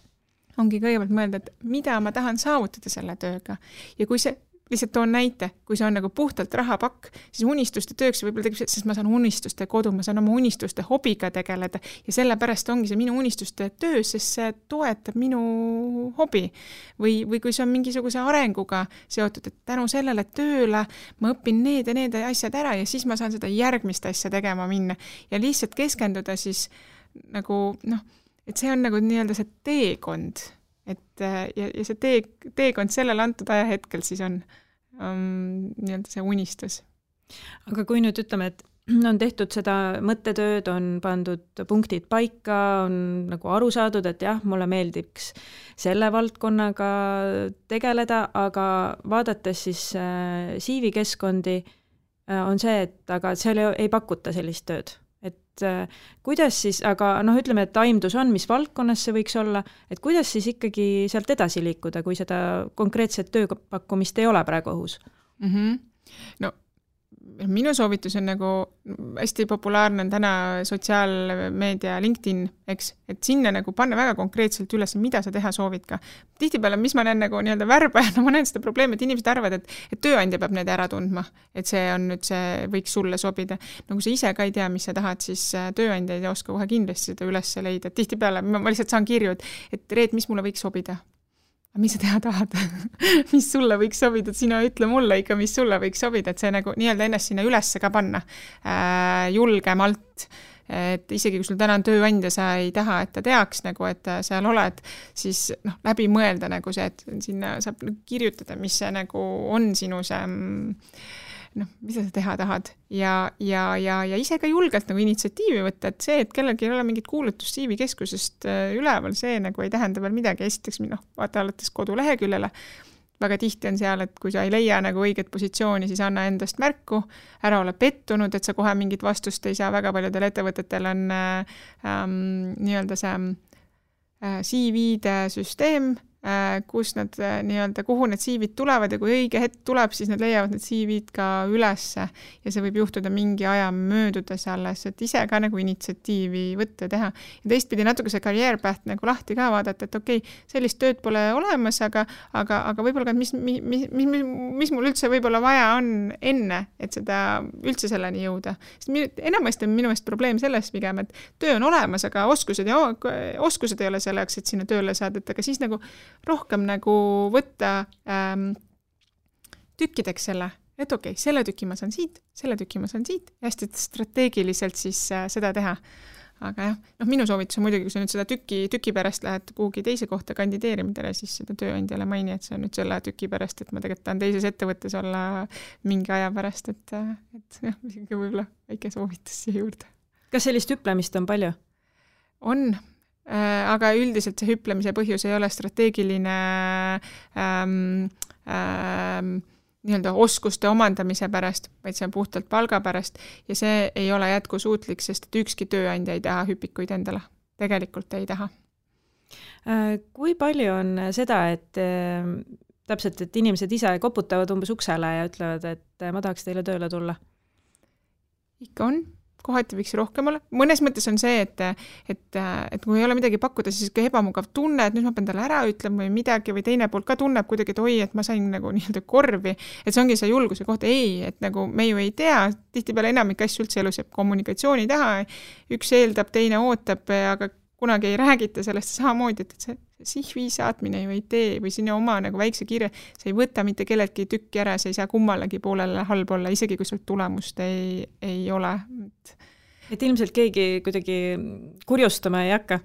Ongi kõigepealt mõelda, et mida ma tahan saavutada selle tööga. Ja kui see lihtsalt toon näite, kui see on nagu puhtalt rahapakk, siis unistuste tööks võib-olla tegib, sest ma saan unistuste kodu, ma saan oma unistuste hobiga tegeleda ja sellepärast ongi see minu unistuste töö, sest see toetab minu hobi. Või kui see on mingisuguse arenguga seotud, et tänu sellele tööle ma õpin need ja need asjad ära ja siis ma saan seda järgmist asja tegema minna ja lihtsalt keskenduda siis nagu noh, et see on nagu nii-öelda see teekond, et ja see teekond sellel antud ajahetkel siis on nii-öelda see unistus. Aga kui nüüd ütleme, et on tehtud seda mõttetööd, on pandud punktid paika, on nagu aru saadud, et jah, mulle meeldiks selle valdkonnaga tegeleda, aga vaadates siis CV-keskkondi on see, et aga seal ei pakuta sellist tööd. Et kuidas siis, aga ütleme, et aimdus on, mis valdkonnas see võiks olla, et kuidas siis ikkagi sealt edasi liikuda, kui seda konkreetset tööpakkumist ei ole praegu õhus? No minu soovitus on nagu hästi populaarne on täna sotsiaalmeedia LinkedIn, eks, et sinna nagu panna väga konkreetselt üles, mida sa teha soovid ka. Tihtipeale, mis ma näen nagu nii-öelda värbajana, ma näen seda probleemi, et inimesed arvavad, et tööandja peab need ära tundma, et see on nüüd see, võiks sulle sobida. No kui sa ise ka ei tea, mis sa tahad, siis tööandja ei oska kohe kindlasti seda üles leida. Tihtipeale ma lihtsalt saan kirju, et Reet, mis mulle võiks sobida? Mis sa teha tahad? Mis sulle võiks sobida? Sina ütle mulle ikka, mis sulle võiks sobida, et see nagu nii-öelda ennast sinna üles ka panna julgemalt, et isegi kui sul täna on tööandja, sa ei taha, et ta teaks nagu, et seal oled, siis läbi mõelda nagu see, et sinna saab kirjutada, mis see nagu on sinu see mida sa teha tahad ja ise ka julgelt nagu initsiatiivi võtta, et see, et kellelgi ei ole mingit kuulutust CV-keskusest üleval, see nagu ei tähenda veel midagi. Esiteks, vaata alates koduleheküljele, väga tihti on seal, et kui sa ei leia nagu õiget positsiooni, siis anna endast märku, ära ole pettunud, et sa kohe mingit vastust ei saa. Väga paljudel ettevõtetel on nii-öelda see CV-de süsteem, kus nad nii-öelda, kuhu need CV-d tulevad ja kui õige hetk tuleb, siis nad leiavad need CV-d ka ülesse ja see võib juhtuda mingi aja möödudes alles, et ise ka nagu initsiatiivi võtta teha. Ja teistpidi natuke see career path nagu lahti ka vaadata, et okei, sellist tööd pole olemas, aga võib-olla ka, mis mul üldse võib-olla vaja on enne, et seda üldse selleni jõuda. Enamasti on minu meelest probleem selles pigem, et töö on olemas, aga oskused ei ole selleks, et sinna tööle saada, et aga siis nagu rohkem nagu võtta tükkideks selle, et okei, selle tüki ma saan siit, selle tüki ma saan siit ja hästi strateegiliselt siis seda teha. Aga jah, minu soovitus on muidugi, kui sa nüüd seda tüki pärast lähed kuhugi teise kohta kandideerimidele, siis seda tööandjale maini, et see on nüüd selle tüki pärast, et ma tegelikult tahan teises ettevõttes olla mingi aja pärast, et jah, võib-olla väike soovitus siia juurde. Kas sellist hüplemist on palju? On. Aga üldiselt see hüplemise põhjus ei ole strateegiline nii-öelda oskuste omandamise pärast, vaid see on puhtalt palga pärast ja see ei ole jätkusuutlik, sest et ükski tööandja ei taha hüpikuid endale. Tegelikult ei taha. Kui palju on seda, et täpselt, et inimesed ise koputavad umbes uksele ja ütlevad, et ma tahaks teile tööle tulla? Ikka on. Kohati võiks rohkem olla. Mõnes mõttes on see, et kui ei ole midagi pakkuda, siis ka ebamugav tunne, et nüüd ma pean talle ära ütlema või midagi või teine poolt ka tunneb kuidagi, et oi, et ma sain nagu nii-öelda korvi, et see ongi see julguse koht. Ei, et nagu me ju ei tea, tihtipeale enamik asju üldse elus jääb kommunikatsiooni taha, üks eeldab, teine ootab, aga kunagi ei räägita sellest samamoodi, et see CV saatmine ju ei tee või sinna oma nagu väikse kirja, see ei võta mitte kelleltki tükki ära, see ei saa kummalegi poolele halb olla, isegi kui sul tulemust ei ole. Et ilmselt keegi kuidagi kurjustama ei hakka?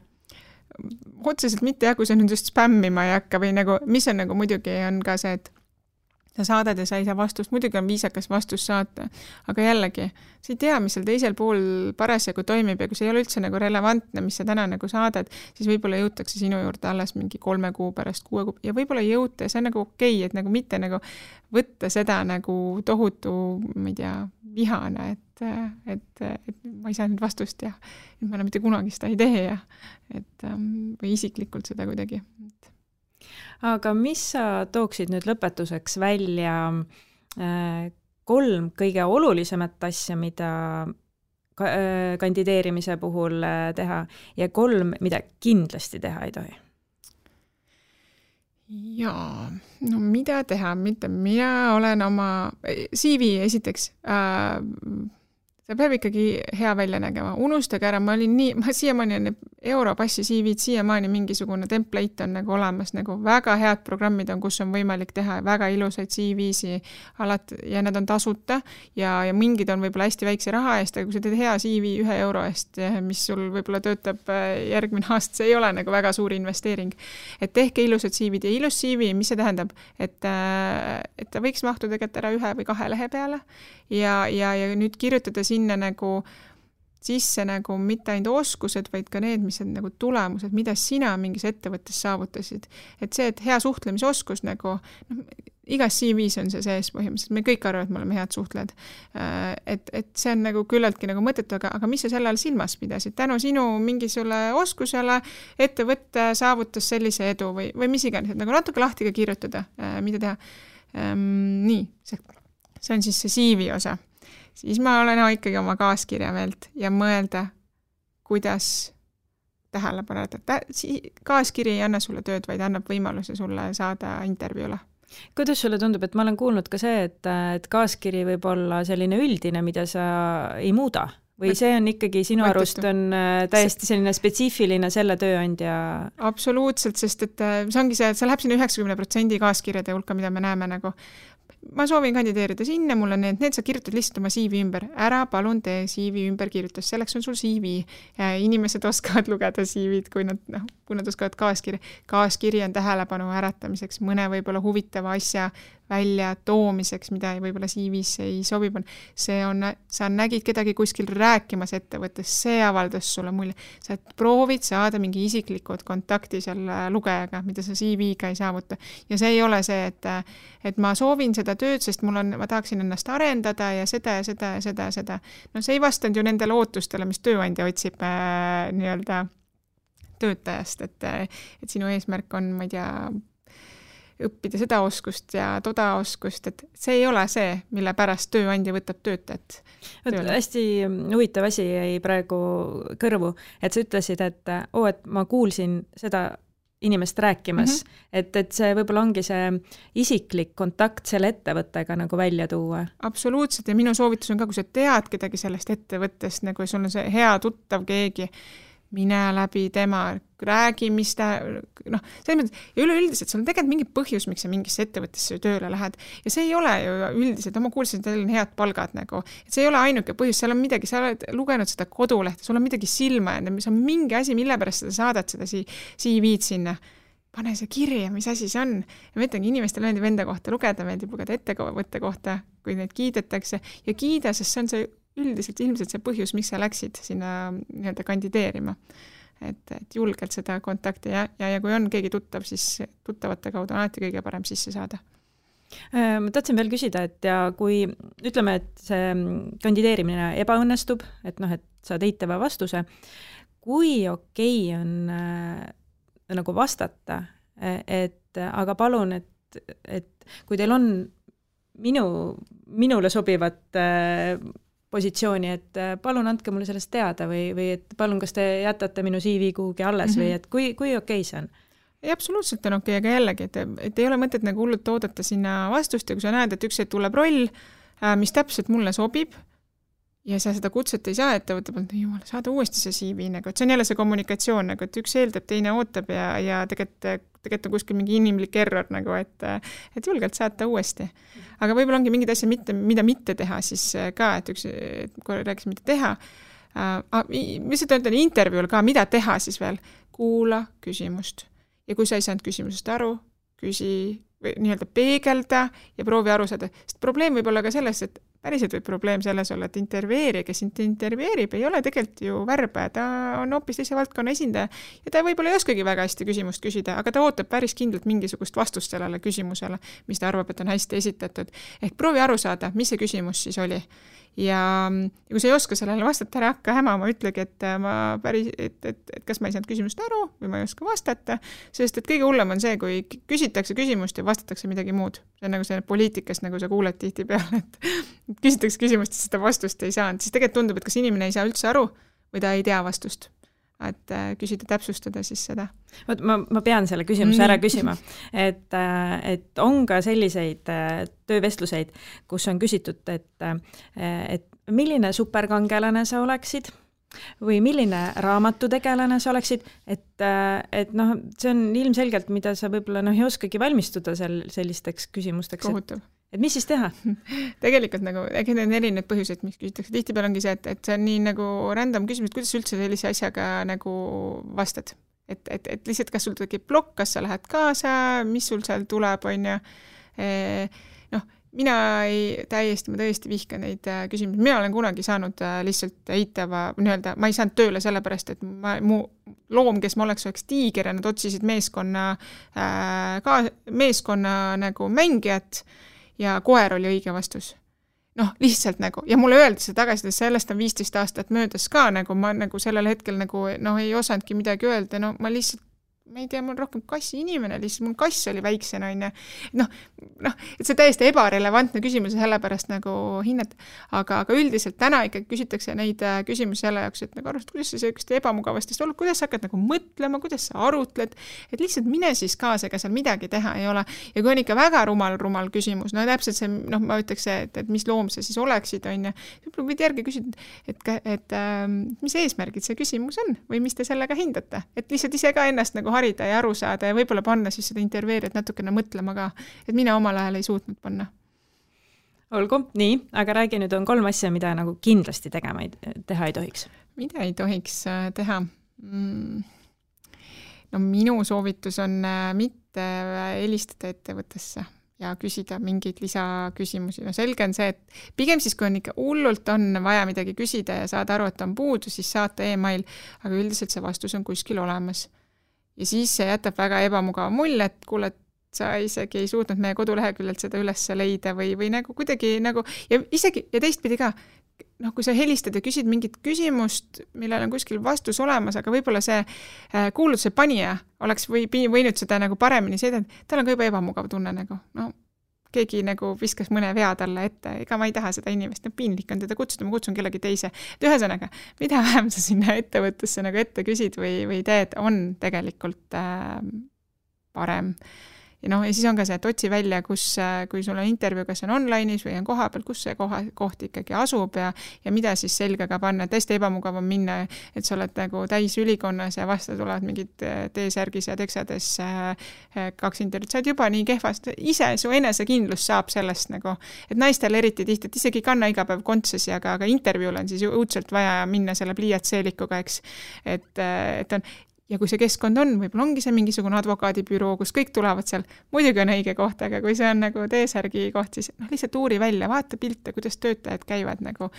Otseselt mitte jah, kui sa nüüd just spämmima ei hakka või nagu, mis on nagu muidugi on ka see, et sa saadad ja sa ei saa vastust, muidugi on viisakas vastus saata, aga jällegi, sa ei tea, mis seal teisel pool parasjagu toimib ja kui see ei ole üldse nagu relevantne, mis sa täna nagu saadad, siis võib-olla jõutakse sinu juurde alles mingi 3 kuu pärast, 6 kuu ja võib-olla ei jõuta ja see on nagu okei, et nagu mitte nagu võtta seda nagu tohutu, ma ei tea, vihane, et ma ei saa nüüd vastust ja ma enam mitte kunagi seda ei tee ja või isiklikult seda kuidagi. Aga mis sa tooksid nüüd lõpetuseks välja 3 kõige olulisemat asja, mida kandideerimise puhul teha ja 3, mida kindlasti teha ei tohi? Jaa, no mida teha, mina olen oma CV esiteks, see peab ikkagi hea välja nägema, unustage ära, ma siiamaani Europassi CV-d siiamaani mingisugune template on nagu olemas, nagu väga head programmid on, kus on võimalik teha väga ilusaid CV-si alati ja need on tasuta ja mingid on võib-olla hästi väikse raha eest, aga kui sa teed hea CV 1 euro eest, mis sul võib-olla töötab järgmine aasta, see ei ole nagu väga suur investeering. Et tehke ilusad CV-d ja ilus CV, mis see tähendab, et ta võiks mahtuda tegelikult ära 1 või 2 lehe peale ja nüüd kirjutada sinna nagu sisse nagu mitte ainult oskused, vaid ka need, mis on nagu tulemused, mida sina mingis ettevõttes saavutasid. Et see, et hea suhtlemisoskus nagu, igas CV-s on see sees põhimõtteliselt, me kõik arvavad, et me oleme head suhtled. Et see on nagu küllaltki nagu mõttetu, aga mis sa selle all silmas pidasid? Tänu sinu mingisugusele oskusele ettevõtte saavutas sellise edu või mis iganes, et nagu natuke lahti ka kirjutada, mida teha. Nii, see on siis see CV osa. Siis ma olen ikkagi oma kaaskirja meelt ja mõelda, kuidas tähele paneda. Kaaskiri ei anna sulle tööd, vaid annab võimaluse sulle saada intervjuule. Kuidas sulle tundub, et ma olen kuulnud ka see, et kaaskiri võib olla selline üldine, mida sa ei muuda? Või see on ikkagi sinu arust on täiesti selline spetsiifiline selle tööandja? Absoluutselt, sest et see ongi see, et see läheb sinna 90% kaaskirjade hulka, mida me näeme nagu. Ma soovin kandideerida sinna, mul on need sa kirjutad lihtsalt oma CV ümber. Ära palun tee CV ümber kirjutas, selleks on sul CV. Inimesed oskavad lugeda CV-d, kui nad oskavad kaaskirja. Kaaskiri on tähelepanu äratamiseks, mõne võib-olla huvitava asja välja toomiseks, mida võib-olla CV-s ei sobib. Sa nägid kedagi kuskil rääkimas ettevõttes, see avaldas sulle mulje. Sa proovid saada mingi isiklikud kontakti selle lugejaga, mida sa CV-ga ei saavuta. Ja see ei ole see, et ma soovin seda tööd, sest ma tahaksin ennast arendada ja seda. No see ei vastanud ju nendele ootustele, mis tööandja otsib nii-öelda töötajast, et sinu eesmärk on, ma ei tea, õppida seda oskust ja toda oskust, et see ei ole see, mille pärast tööandja võtab töötajat. Hästi huvitav asi jäi praegu kõrvu, et sa ütlesid, et ma kuulsin seda inimest rääkimas, et see võib-olla ongi see isiklik kontakt selle ettevõttega nagu välja tuua. Absoluutselt ja minu soovitus on ka, kui sa tead kedagi sellest ettevõttest, nagu sul on see hea tuttav keegi, mine läbi tema, räägi, mis ta, selles mõttes, ja üleüldiselt sul on tegelikult mingi põhjus, miks sa mingisse ettevõttesse tööle lähed. Ja see ei ole ju üldiselt, ma kuulsin, et teil on head palgad nagu, et see ei ole ainuke põhjus, seal on midagi, sa oled lugenud seda kodulehte, sul on midagi silma jäänud, mis on mingi asi, mille pärast sa saadad seda CV-d sinna. Pane see kirja, mis asi see on. Ja ma ütlengi, inimestel meeldib enda kohta lugeda, meeldib lugeda ettevõtte kohta, kui neid kiidetakse ja kiida, sest see on see üldiselt ilmselt see põhjus, miks sa läksid sinna nii-öelda kandideerima. Et julgelt seda kontakti ja kui on keegi tuttav, siis tuttavate kaudu on alati kõige parem sisse saada. Ma tahtsin veel küsida, et ja kui ütleme, et see kandideerimine ebaõnnestub, et saad eitava vastuse, kui okei on nagu vastata, et aga palun, et kui teil on minule sobivat positsiooni, et palun andke mulle sellest teada või et palun, kas te jätate minu CV kuhugi alles või et kui okei see on? Ei, absoluutselt on okei, aga jällegi, et ei ole mõtet nagu hullult oodata sinna vastust ja kui sa näed, et üks tuleb roll, mis täpselt mulle sobib ja sa seda kutset ei saa ettevõtte poolt, jumala, saada uuesti see CV, nagu, et see on jälle see kommunikatsioon, nagu, et üks eeldab, teine ootab ja tegelikult on kuskil mingi inimlik error, nagu, et julgelt saata uuesti. Aga võib-olla ongi mingid asja, mida mitte teha siis ka, et kui rääkis, mida teha. Mis ütlen intervjuul ka, mida teha siis veel? Kuula küsimust. Ja kui sa ei saanud küsimusest aru, küsi või nii-öelda peegelda ja proovi aru saada. Sest probleem võib olla ka selles, et päriselt võib probleem selles olla, et intervjueerija, kes intervjueerib, ei ole tegelikult ju värbaja, ta on hoopis teise valdkonna esindaja ja ta võib-olla ei oskagi väga hästi küsimust küsida, aga ta ootab päris kindlalt mingisugust vastust sellele küsimusele, mis ta arvab, et on hästi esitatud. Ehk proovi aru saada, mis see küsimus siis oli. Ja kui sa ei oska sellele vastata, ära hakka hämama, ütlegi, et kas ma ei saanud küsimust aru või ma ei oska vastata, sest et kõige hullem on see, kui küsitakse küsimust ja vastatakse midagi muud. See on nagu see poliitikas, nagu sa kuuled tihti peale, et küsitakse küsimust ja seda vastust ei saanud, siis tegelikult tundub, et kas inimene ei saa üldse aru või ta ei tea vastust. Et küsida, täpsustada siis seda. Ma pean selle küsimuse ära küsima, et on ka selliseid töövestluseid, kus on küsitud, et milline superkangelane sa oleksid, või milline raamatutegelane sa oleksid, et noh, see on ilmselgelt, mida sa võib-olla noh, ei oskagi valmistuda sellisteks küsimusteks. Kohutav. Et mis siis teha? Tegelikult nagu, need on erinevad põhjused, mis küsitakse. Tihtipeale ongi see, et see on nii nagu random küsimus, kuidas üldse sellise asjaga nagu vastad. Et lihtsalt, kas sul tekib plokk, kas sa lähed kaasa, mis sul seal tuleb, on ju. Noh, ma tõesti vihkan neid küsimusi. Mina olen kunagi saanud lihtsalt eitava, ma ei saanud tööle sellepärast, et mu loom, kes ma oleks tiiger ja nad otsisid meeskonna nagu mängijat ja koer oli õige vastus. Noh, lihtsalt nagu, ja mulle öeldi see tagasi, et sellest on 15 aastat möödas ka, nagu ma nagu sellel hetkel nagu, noh, ei osanudki midagi öelda, no ma lihtsalt, ma ei tea, mul rohkem kassi inimene, lihtsalt mul kass oli väiksena, on ju. Noh, et see täiesti ebarelevantne küsimus ja sellepärast nagu hinnata, aga üldiselt täna ikkagi küsitakse neid küsimusi selle jaoks, et nagu arvast, kuidas sa sellist ebamugavastest oled, kuidas sa hakkad nagu mõtlema, kuidas sa arutled, et lihtsalt mine siis kaasa, ega seal midagi teha ei ole. Ja kui on ikka väga rumal küsimus, no täpselt see, noh, ma ütleks, et mis loom sa siis oleksid, on ju, võib-olla võid järgi küsida, et mis eesmärgid see küsimus on või mis te sellega hindate, et lihtsalt ise ka ennast nagu harida ja aru saada ja võib-olla panna siis seda intervjueerijat natukene mõtlema ka, et mina omal ajal ei suutnud panna. Olgu, nii, aga räägi nüüd on 3 asja, mida nagu kindlasti teha ei tohiks. Mida ei tohiks teha? No minu soovitus on mitte helistada ettevõttesse ja küsida mingeid lisaküsimusi. No selge on see, et pigem siis, kui on ikka hullult on vaja midagi küsida ja saada aru, et on puudu, siis saata e-mail, aga üldiselt see vastus on kuskil olemas. Ja siis see jätab väga ebamugava mulje, et kuule, et sa isegi ei suutnud meie koduleheküljelt seda üles leida või nagu kuidagi nagu, ja isegi, ja teistpidi ka, noh, kui sa helistad ja küsid mingit küsimust, millel on kuskil vastus olemas, aga võib-olla see kuulutuse panija oleks võinud seda nagu paremini seedada, tal on ka juba ebamugav tunne nagu, no keegi nagu viskas mõne vea talle ette, ega ma ei taha seda inimest, piinlik on teda kutsuda, ma kutsun kellegi teise. Et ühesõnaga, mida vähem sa sinna ettevõttesse nagu ette küsid või teed, on tegelikult parem. Ja siis on ka see, et otsi välja, kui sul on intervjuu, kas on online'is või on koha peal, kus see koht ikkagi asub ja mida siis selgega panna. Tõesti ebamugav on minna, et sa oled nagu täis ülikonnas ja vastu tulevad mingid T-särgis ja teksades 2 intervjuud. Sa oled juba nii kehvast. Ise su enesekindlus saab sellest nagu, et naistel eriti tihti, et isegi kanna iga päev kontsesi, aga intervjuul on siis õudselt vaja minna selle pliiatseelikuga, eks. Et on ja kui see keskkond on, võib-olla ongi see mingisugune advokaadibüroo, kus kõik tulevad seal, muidugi on õige koht, aga kui see on nagu T-särgi koht, siis lihtsalt uuri välja, vaata pilte, kuidas töötajad käivad nagu,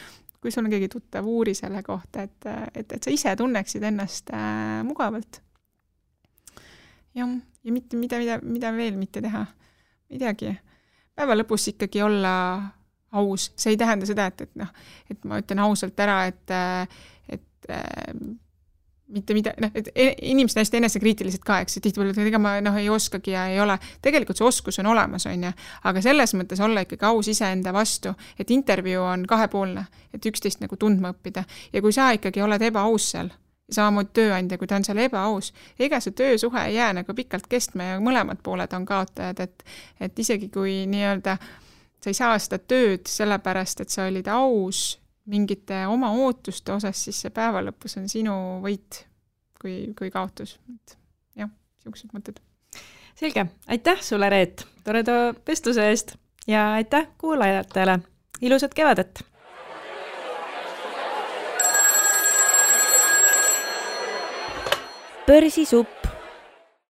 kui sul on keegi tuttav, uuri selle kohta, et sa ise tunneksid ennast mugavalt. Ja mida veel mitte teha? Midagi. Päeva lõpus ikkagi olla aus. See ei tähenda seda, et ma ütlen ausalt ära, et mitte mida, et inimesed hästi enesekriitilised ka, eks, et tihtipeale, et ega ma ei oskagi ja ei ole. Tegelikult see oskus on olemas, on ju, aga selles mõttes olla ikkagi aus iseenda vastu, et intervjuu on 2-poolne, et üksteist nagu tundma õppida. Ja kui sa ikkagi oled ebaaus seal, samamoodi tööandja, kui ta on seal ebaaus, ega see töösuhe ei jää nagu pikalt kestma ja mõlemad pooled on kaotajad, et isegi kui nii-öelda sa ei saa seda tööd sellepärast, et sa olid aus mingite oma ootuste osas, siis see päeva lõpus on sinu võit kui kaotus. Jah, siuksed mõtted. Selge. Aitäh sulle, Reet, toreda vestluse eest ja aitäh kuulajatele. Ilusat kevadet! Börsisupp